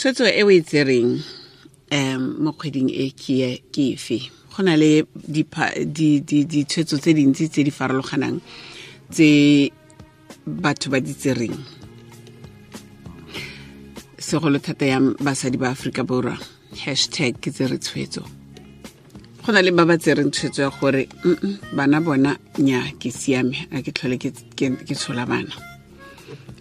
Tshwetso e o e tsereng mo kgweding e ke efe? Go na le ditshwetso tse dintsi tse di farologanang tse batho ba di tsereng, segolo thata yang basadi ba Aforika Borwa. Hashtag ke tsere tshwetso. Go na le ba ba tsereng tshwetso ya gore bana bona nya ke siame, a ke tlhole ke tshola bana.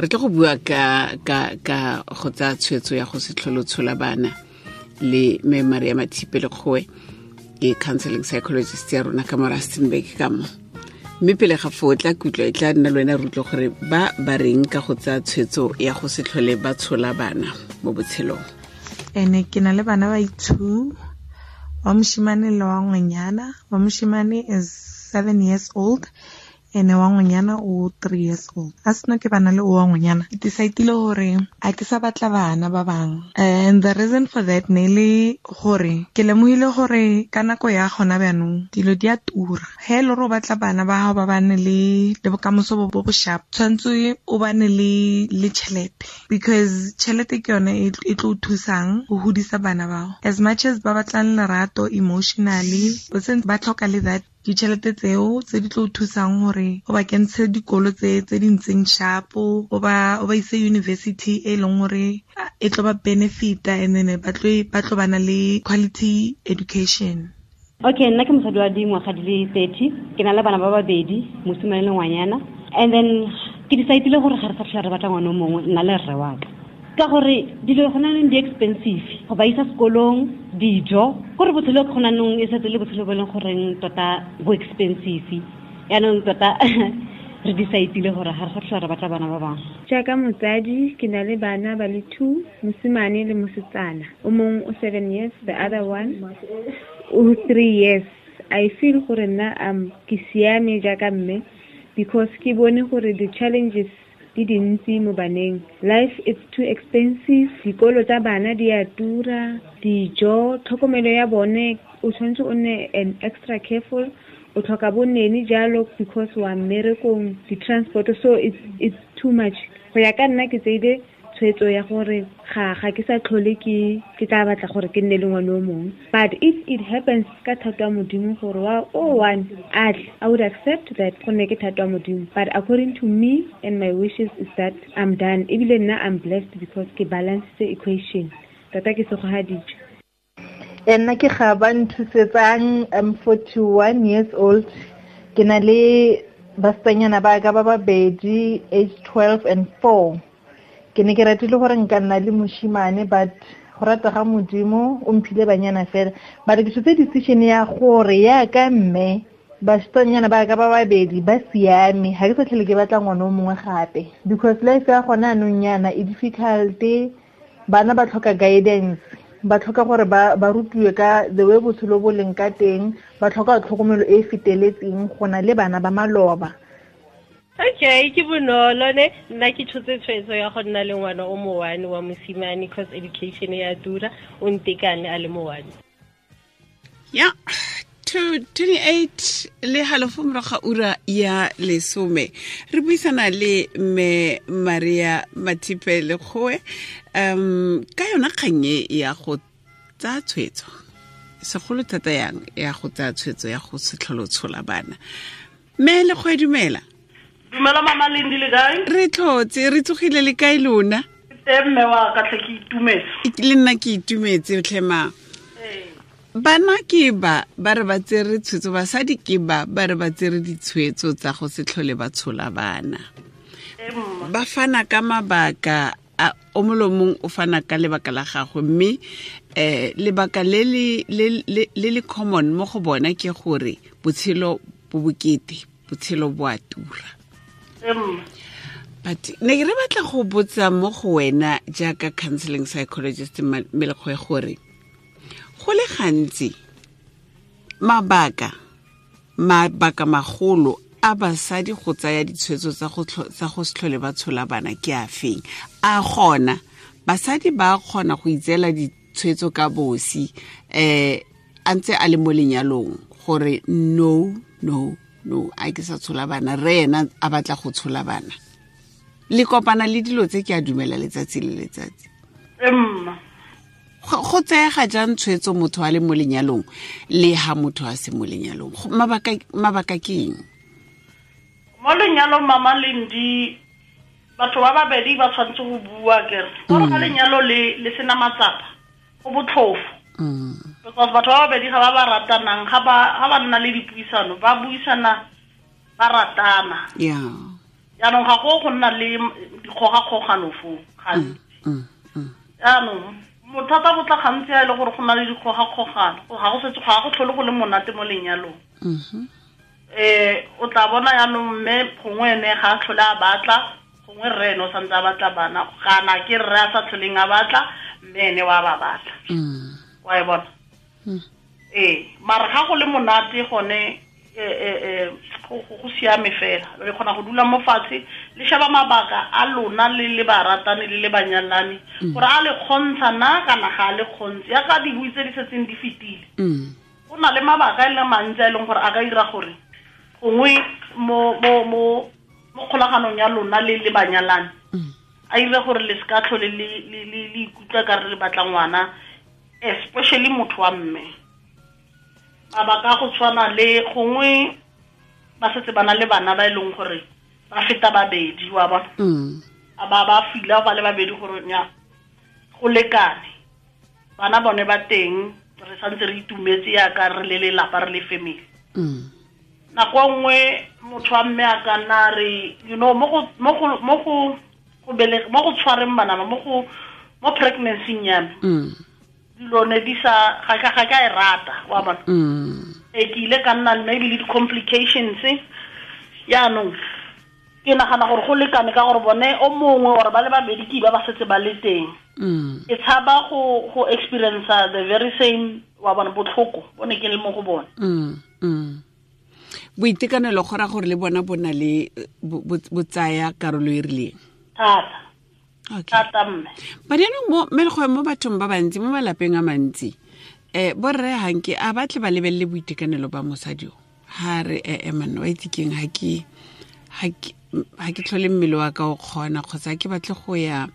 Re tlo go bua ka go tsaya tshwetso ya go se tlhole tshola bana le mme Maria Mathipe Lekgowe, ke counseling psychologist ya rona ka mo Rustenburg ka mo. Mme pele ga foo tla kutlwa e tla nna le wena re utlwe gore ba ba reng ka go tsaya tshwetso ya go se tlhole ba tshola bana mo botshelong. Ene ke na le bana ba two, wa moshimane le wa ngwanyana. Wa moshimane is 7 years old, ene wa ngwanyana o 3 years old. A seno ke bana le o wa ngwanyana, ke decide-ile gore a ke sa batla bana ba bangwe. And the reason for that ne le gore ke lemogile gore ka nako ya gona bjanong dilo di a tura. He le gore o batla bana ba gago ba bane le bokamoso bo bo sharp, tshwanetse o bane le tšhelete, because tšhelete ke yone e tlo thusang go godisa bana bao. As much as ba batlang lerato emotionally, ba tlhoka le that ditšhelete tseo tse di tlo thusang gore o ba kentshe dikolo tse di ntseng sharp, o ba ise university e leng gore e tlo ba benefita, and then ba tlo bana le quality education. Okay, nna ke mosadi wa dingwaga di le 30, ke na le bana ba babedi, mosimane le ngwanyana. And then ke decide-ile gore ga re sa tlhola re batla ngwana o mongwe, nna le rre wa ka. Ka gore dilo gona nong di expensive, go ba isa sekolong, dijo, gore botshelo gona nong e setse le botshelo bo e leng goreng tota bo expensive. Yaanong tota re decide-ile gore ga re sa tlhola re batla bana ba bangwe. Jaaka motsadi ke na le bana ba le 2, mosimane le mosetsana. O mongwe o 7 years, the other one o 3 years. I feel gore nna ke siame jaaka mme, because ke bone gore the challenges di dintsi mo baneng. Life is too expensive, dikolo tsa bana di a tura, dijo, tlhokomelo ya bone o tshwanetse o nne an extra careful, o tlhoka bo nene jalo because wa mmerekong, di-transport, so it's too much. Go ya ka nna ke tseile tshwetso ya gore ga ke sa tlhole ke tla batla gore ke nne le ngwana o mongwe. But if it happens ka thato ya Modimo gore wa o one a tle, I would accept that gonne ke thato ya Modimo. But according to me and my wishes is that I'm done. Ebile nna I'm blessed because ke balance the equation. Tota ke segogaditswe. Nna ke ga ba nthusetsang, I'm 41 years old. Ke na le basetsanyana ba ka ba babedi, age 12 and 4. Ke ne ke ratile gore nka nna le moshimane, but go rata ga Modimo o mphile banyana fela. But ke tshotse decision ya gore yaka mme basetsanyana ba ka ba babedi ba siame, ga ke sa tlhole ke batla ngwana o mongwe gape, because life ya gona anong yana e difficult. Bana ba tlhoka guidance, ba tlhoka gore ba rutiwe ka the way botshelo bo leng ka teng, ba tlhoka tlhokomelo e e feteletseng go na le bana ba maloba. Okay, ke bonolo ne, nna ke tshotse tshwetso ya go nna le ngwana o mo one wa mosimane, cause education ya tura, o ntekane a le mo one. Ya, 28 le halofo morago ga ura ya 10. Re buisana le mme Maria Mathipe Lekgowe ka yona kgang e ya go tsaya tshwetso, segolo thata yang ya go tsaya tshwetso ya go se tlhole o tshola bana. Mme Lekgowe, dumela. Dumela mama Lindi, le kae? Re tlhotse, re tsogile le kae lona? Teng mme wa ka tlhe, ke itumetse. Le nna ke itumetse tlhe ma. Bana ke ba re ba tsere tshwetso, basadi ke ba re ba tsere ditshwetso tsa go se tlhole ba tshola bana. Ba fana ka mabaka, o molomong o fana ka lebaka la gagwe, mme lebaka le le common mo go bona ke gore botshelo bo bokete, botshelo bo a tura. But ne re batla go botsa mo go wena jaaka counseling psychologist Melekgoe gore go le gantsi mabaka magolo a basadi go tsaya ditshwetso tsa go se tlhole ba tshola bana ke a feng? A gona basadi ba kgona go itseela ditshwetso ka bosi a ntse a le mo lenyalong gore no no no, a ke sa tshola bana, re ena a batla go tshola bana. Le kopana le dilo tse ke a dumela letsatsi le letsatsi. Go tseega jang tshwetso motho a le mo lenyalong le ha motho a se mo lenyalong? Mabaka ke eng? Mo lenyalong, Mama Lendi, batho ba babedi ba tshwanetse go bua kere gore ga lenyalo le sena matsapa go botlhofo, because batho ba babedi ga ba ba ratanang, ga ba nna le dipuisano, ba buisana ba ratana. Jaanong ga go nna le dikgogakgogano foo gantsi. Jaanong bothata bo tla gantsi a e le gore go na le dikgogakgogano, ga go setse ga go tlhole go le monate mo lenyalong. O tla bona jaanong mme gongwe ene ga a tlhole a batla, gongwe rre ene o santse a batla bana, kana ke rre a sa tlholeng a batla, mme ene wa ba batla. Wa e bona? Ee, mara ga go le monate gone go siame fela, le kgona go dula mo fatshe le sheba mabaka a lona le le baratani le le banyalani gore a le kgontsha na kana ga a le kgontse, yaka dibui tse di setseng di fetile. Go na le mabaka e le mantsi a e leng gore a ka dira gore gongwe mo kgolaganong ya lona le le banyalani a dire gore le seka tlhole le ikutlwa ka re le batla ngwana, especially motho wa mme. Mabaka go tshwana le gongwe ba setse ba na le bana ba e leng gore ba feta babedi, wa bona, a ba fila ba le babedi gore nya go lekane, bana bone ba teng, re santse re itumetse yaka re le lelapa, re le family. Nako nngwe motho wa mme a ka nna re, you know, mo go tshwareng bana ba, mo pregnancy ya me, dilo ne di sa ga ka e rata, wa bona. E ke ile ka nna maybe le di-complications. Yaanong ke nagana gore go lekane ka gore bone o mongwe or ba le babedi ke ba setse ba le teng. Ke tshaba go experience the very same, wa bona, botlhoko bo ne ke le mo go bone. Boitekanelo go ra gore le bona bo na le bo tsaya karolo e rileng thata. Thata mme. But yaanong mo mo bathong ba bantsi, mo malapeng a mantsi, borre hanke a batle ba lebelele boitekanelo ba mosadi o. Ha re manna wa itse keng, ha ke tlhole mmele wa ka o kgona, kgotsa ke batle go ya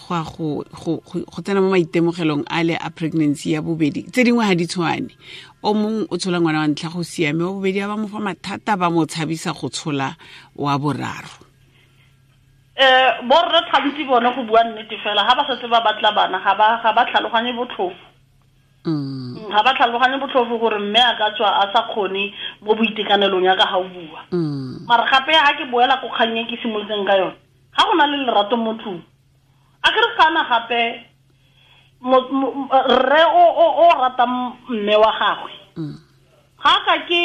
go tsena mo maitemogelong a le a pregnancy ya bobedi. Tse dingwe ga di tshwane, o mongwe o tshola ngwana wa ntlha go siame, wa bobedi a ba mo fa mathata, ba mo tshabisa go tshola wa boraro. Borre gantsi bone go bua nnete fela, ga ba setse ba batla bana ga ba tlhaloganye botlhofo. Ga ba tlhaloganye botlhofo gore mme a ka tswa a sa kgone mo boitekanelong ya ka ga o bua. Mara gape ga ke boela ko kgang e ke simolotseng ka yone, ga go na le lerato mo tlung, a ke re kana gape rre o ratang mme wa gagwe, ga ka ke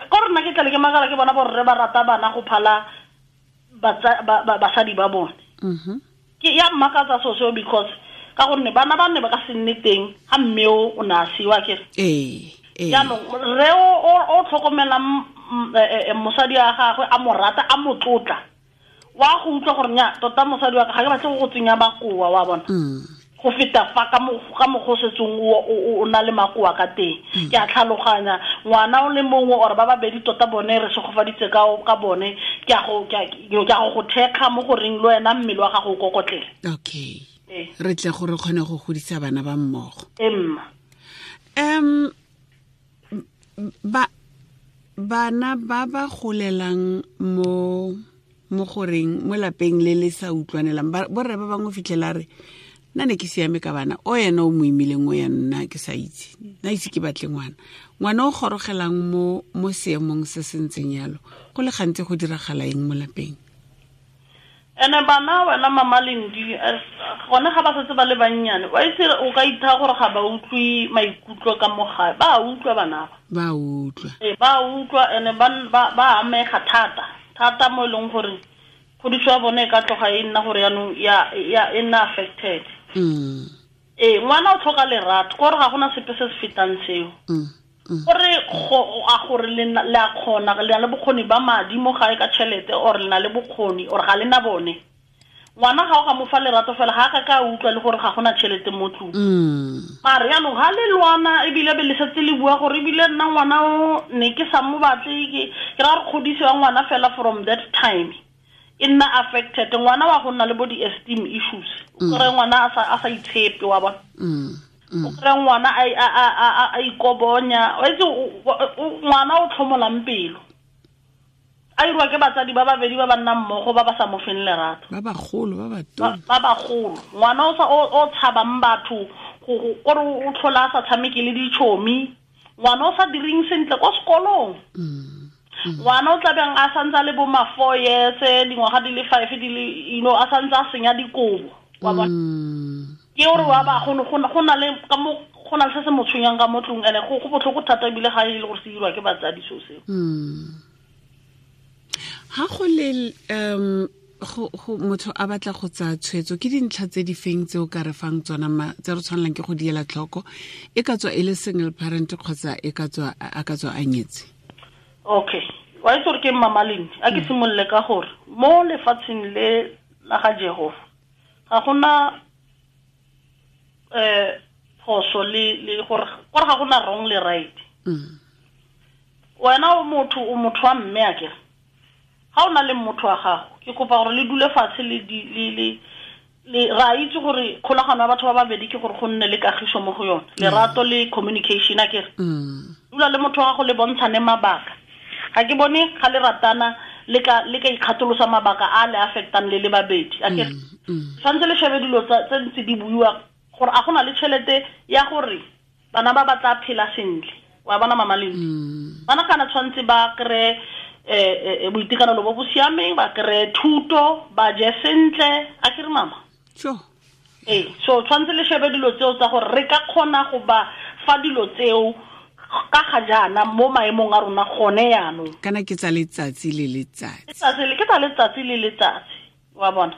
ko rena ke tlale ke makala ke bona borre ba rata bana go phala basadi ba bone. Ke ya mmakatsa so seo, because ka gonne bana ba ne ba ka se nne teng ga mme o ne a siwa ke. Jaanong rre o tlhokomelang mosadi wa gagwe, a mo rata, a mo tlotla, wa go utlwa gore nya tota mosadi wa ka ga ke batle go tsenya makoa, wa bona, go feta fa ka mokgwa o setseng o na le makoa ka teng. Ke a tlhaloganya ngwana o le mongwe or ba babedi tota bone re segofaditse ka bone, ke a go go thekga mo goreng le wena mmele wa gago o kokotlele. Okay, re tle gore kgone go godisa bana ba mmogo. Emma bana ba ba golelang mo goreng mo lapeng le le sa utlwanelang, borre ba bangwe fitlhela re nna ne ke siame ka bana, o yena o mo imileng, o ya nna ke sa itse, nna itse ke batle ngwana. Ngwana o gorogelang mo seemong se se ntseng yalo, go le gantsi go diragala eng mo lapeng? Ene bana wena Mama Lendi, gone ga ba setse ba le bannyane, wa itse o ka itha gore ga ba utlwe maikutlo ka mo gae, ba utlwa bana ba. Ba utlwa. Ba utlwa ene ba amega thata thata mo e leng gore kgodiso ya bone e ka tloga e nna gore yaanong ya e nna affected. Ngwana o tlhoka lerato, kore ga gona sepe se se fetang seo. Gore a gore le a kgona, le na le bokgoni ba madi mo gae ka tšhelete, or le na le bokgoni or ga le na bone. Ngwana ga o ka mo fa lerato fela, ga a ka utlwa le gore ga gona tšhelete mo tlung. Mare yaanong ga le lwana ebile be le setse le bua gore ebile nna ngwana o ne ke sa mo batle, ke ra gore kgodiso ya ngwana fela from that time e nna affected. Ngwana wa go nna le bo di-esteem issues, o kry ngwana a sa itshepe, wa bona. O kry ngwana a ikobonya, wa itse ngwana o tlhomolang pelo. A irwa ke batsadi ba babedi ba ba nnang mmogo ba ba sa mo feng lerato. Ba bagolo ba batona. Ba bagolo. Ngwana o tshabang batho gore o tlhola a sa tshameke le ditšhomi. Ngwana o sa direng sentle ko sekolong. Ngwana o tlabeng a santse a le bo ma 4 years, dingwaga di le 5 di le, you know, a santse a senya dikobo. Wa bona? Ke gore wa ba go na le ka mo go na le se se mo tshwenyang ka mo tlong, ene go botlhoko thata ebile ga e le gore se dirwa ke batsadi so seo. Ha go le go motho a batla go tsaya tshwetso, ke dintlha tse di feng tse o ka re fang tsona tse re tshwanelang ke go diela tlhoko, e ka tswa e le single parent kgotsa e ka tswa a ka tswa a nyetse? Okay, wa itse gore ke Mama Lindi, a ke simolole ka gore mo lefatsheng le la ga Jehova ga gona phoso le gore ga gona wrong le right. Wena o motho wa mme a kere ga o na le motho wa gago, ke kopa gore le dule fatshe le ra itse gore kgolagano ya batho ba babedi ke gore go nne le kagiso mo go yone, lerato le communication a kere. Dula le motho wa gago le bontshane mabaka. Ga ke bone ga le ratana le ka ikgatolosa mabaka a le affectang le le babedi a kere. Tshwanetse le shebe dilo tse ntse di buiwa gore a gona le tšhelete ya gore bana ba tla phela sentle. Wa bona Mama Lindi? Bana kana tshwanetse ba kry boitekanelo bo bo siameng, ba kry thuto, ba je sentle, a kere mama? Sure. So tshwanetse le shebe dilo tseo tsa gore re ka kgona go ba fa dilo tseo ka ga jaana mo maemong a rona gone yaanong. Kana ke tsa letsatsi le letsatsi. Ke tsa letsatsi le letsatsi, wa bona?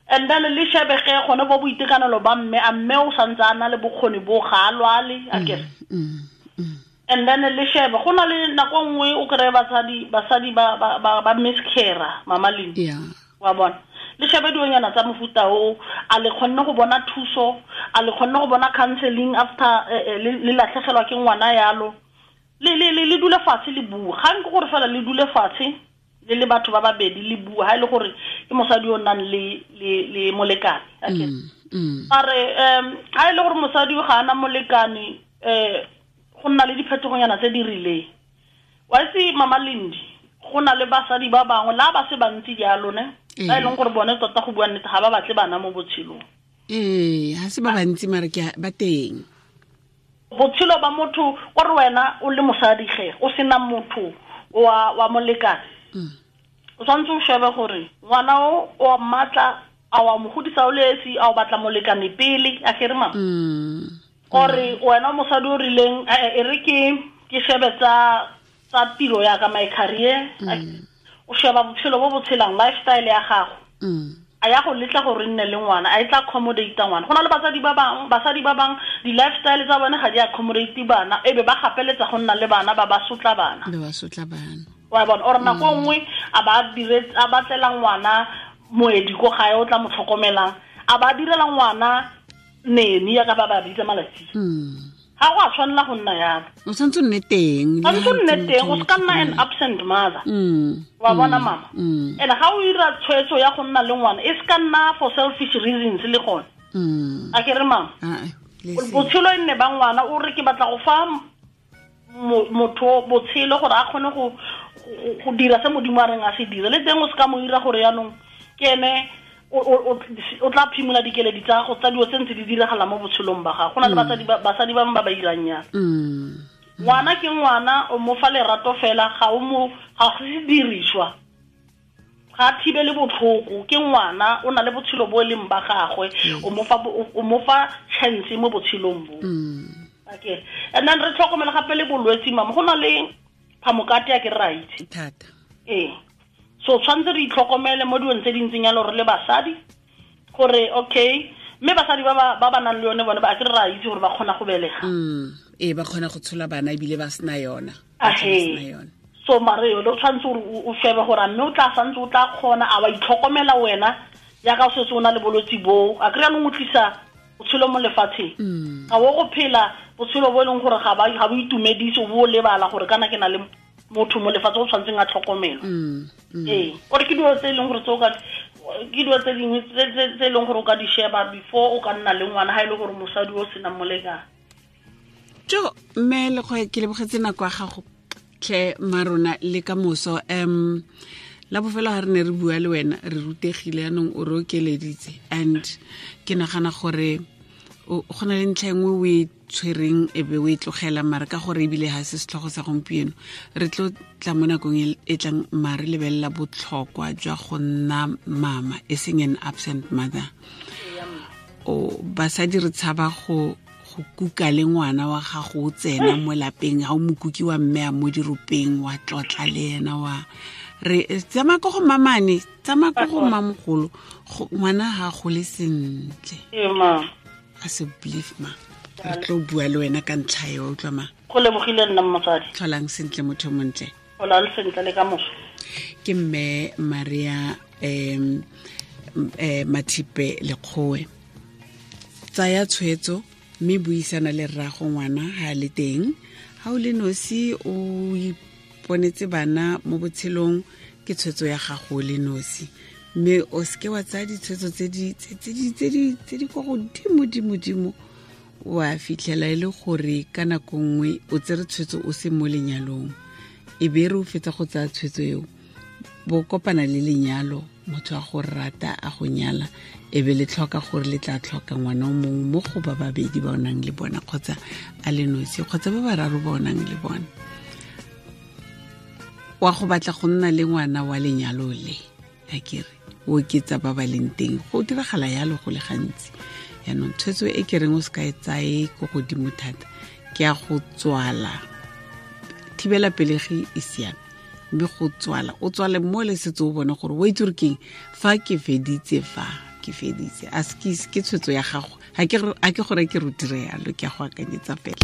And then le shebe ge gone bo boitekanelo ba mme, a mme o santse a na le bokgoni bo ga a lwale, a kere. And then le shebe go na le nako nngwe o kry basadi ba miscarra, Mama Lindi. Wa bona? Le shebe dilonyana tsa mofuta o, a le kgonne go bona thuso, a le kgonne go bona counseling after le latlhegelwa ke ngwana yalo. Le dule fatshe le bua. Ga nke gore fela le dule fatshe le le batho ba babedi le bua, ha e le gore ke mosadi o nang le molekane. Okay. Mare ha e le gore mosadi ga ana molekane, go nna le diphetogonyana tse di rileng. Wa itse Mama Lindi, go na le basadi ba bangwe la ba se bantsi jalo ne, ba e leng gore bone tota go bua nnete ga ba batle bana mo botshelong. Ha se ba bantsi mare ke ba teng. Botshelo ba motho gore wena o le mosadi ge o sena motho wa molekane. O tshwanetse o shebe gore ngwana o wa mmatla, a wa mo godisa o le esi, a o batla molekane pele, a kere mama? Ore wena mosadi o rileng, e re ke shebe tsa tiro ya ka, my career, o sheba botshelo bo bo tshelang, lifestyle ya gago. A ya go letla gore nne le ngwana, a e tla accommodate ngwana. Go na le basadi ba bang di-lifestyle tsa bone ga di accommodate bana, e be ba gapeletsa go nna le bana, ba sotla bana. Ba sotla bana. Wa bona, ore nako nngwe a ba batlela ngwana moedi ko gae o tla mo tlhokomelang, a ba direla ngwana nene ya ka ba bitsa malatsi. Ga go a tshwanela go nna yalo. O tshwanetse o nne teng. Tshwanetse o nne teng, o se ka nna an absent mother. Wa bona mama? And ga o ira tshwetso ya go nna le ngwana, e se ka nna for selfish reasons le gone. A ke re mama? Botshelo e nne ba ngwana, o re ke batla go fa motho botshelo gore a kgone go dira se Modimo a reng a se dire. Le teng o se ka mo ira gore yaanong ke ene o tla phimola dikeledi tsa gago tsa dilo tse ntse di diragala mo botshelong ba gago. Go na le basadi ba bangwe ba ba irang yana. Ngwana ke ngwana, o mo fa lerato fela, ga go se diriswa, ga thibele botlhoko. Ke ngwana, o na le botshelo bo e leng ba gagwe, o mo fa chance mo botshelong bo. Okay. And then re tlhokomela gape le bolwetse mama, go na le phamokate ya ke right thata. So tshwanetse re itlhokomele mo dilong tse di ntseng yalo re le basadi, gore okay, mme basadi ba ba nang le yone bone ba ke re ra itse gore ba kgona go belega. Ba kgona go tshola bana ebile ba sena yona. So mare yone o tshwanetse gore o shebe gore mme o tla santse o tla kgona, a wa itlhokomela wena jaaka o setse o na le bolwetse boo. A kry-a nong o tlisa botshelo mo lefatsheng. Ga o go phela botshelo bo e leng gore ga bo itumedise, o bo o lebala gore kana ke na le motho mo lefatshe o tshwanetseng a tlhokomelwa. Ore ke dilo tse e leng gore tse o ka Ke dilo tse dingwe tse e leng gore o ka di sheba before o ka nna le ngwana, ha e le gore mosadi o sena molekane. Jo, mme le go ke lebogetse nako ya gago tlhe marona le ka moso. La bofelo ha re ne re bua le wena re rutegile, yanong o re okeleditse, and ke nagana gore go na le ntlha e nngwe o e tshwereng e be o e tlogela, mare ka gore ebile ha se setlhogo sa gompieno, re tlo tla mo nakong e tlang mare lebelela botlhokwa jwa go nna mama, e seng an absent mother. O basadi re tshaba go kuka le ngwana wa gago o tsena mo lapeng, ha o mokuki wa mme a mo diropeng, wa tlotla le ena, wa re tsamaya ko go mamane, tsamaya ko go mmamogolo, ngwana ha gole sentle. A se believe ma, re tlo bua le wena ka ntlha eo, utlwa ma. Go lebogile nna mosadi. Tlholang sentle motho montle. Tlholang sentle le ka moso. Ke mme Maria Mathipe Lekgowe. Tsaya tshwetso mme buisana le rrago ngwana ha le teng. Ha o le nosi o iponetse bana mo botshelong, ke tshwetso ya gago le nosi. Mme o seke wa tsaya ditshwetso tse di kwa godimo dimo dimo, wa fitlhela e le gore ka nako nngwe o tsere tshwetso o se mo lenyalong, e be re o fetsa go tsaya tshwetso eo, bo kopana le lenyalo, motho a go rata a go nyala, e be le tlhoka gore le tla tlhoka ngwana o mongwe mo go ba babedi ba o nang le bona, kgotsa a le nosi, kgotsa ba bararo ba o nang le bona. Wa go batla go nna le ngwana wa lenyalo le, akere o oketsa ba ba leng teng, go diragala yalo go le gantsi. Yaanong tshwetso e ke reng o se ka e tsaye ko godimo thata, ke ya go tswala. Thibela pelegi e siame, mme go tswala, o tswale mo le setse o bone gore o itse gore keng fa ke feditse, fa ke feditse. A se ke tshwetso ya gago, ha ke gore ke re dire yalo, ke a go akanyetsa fela.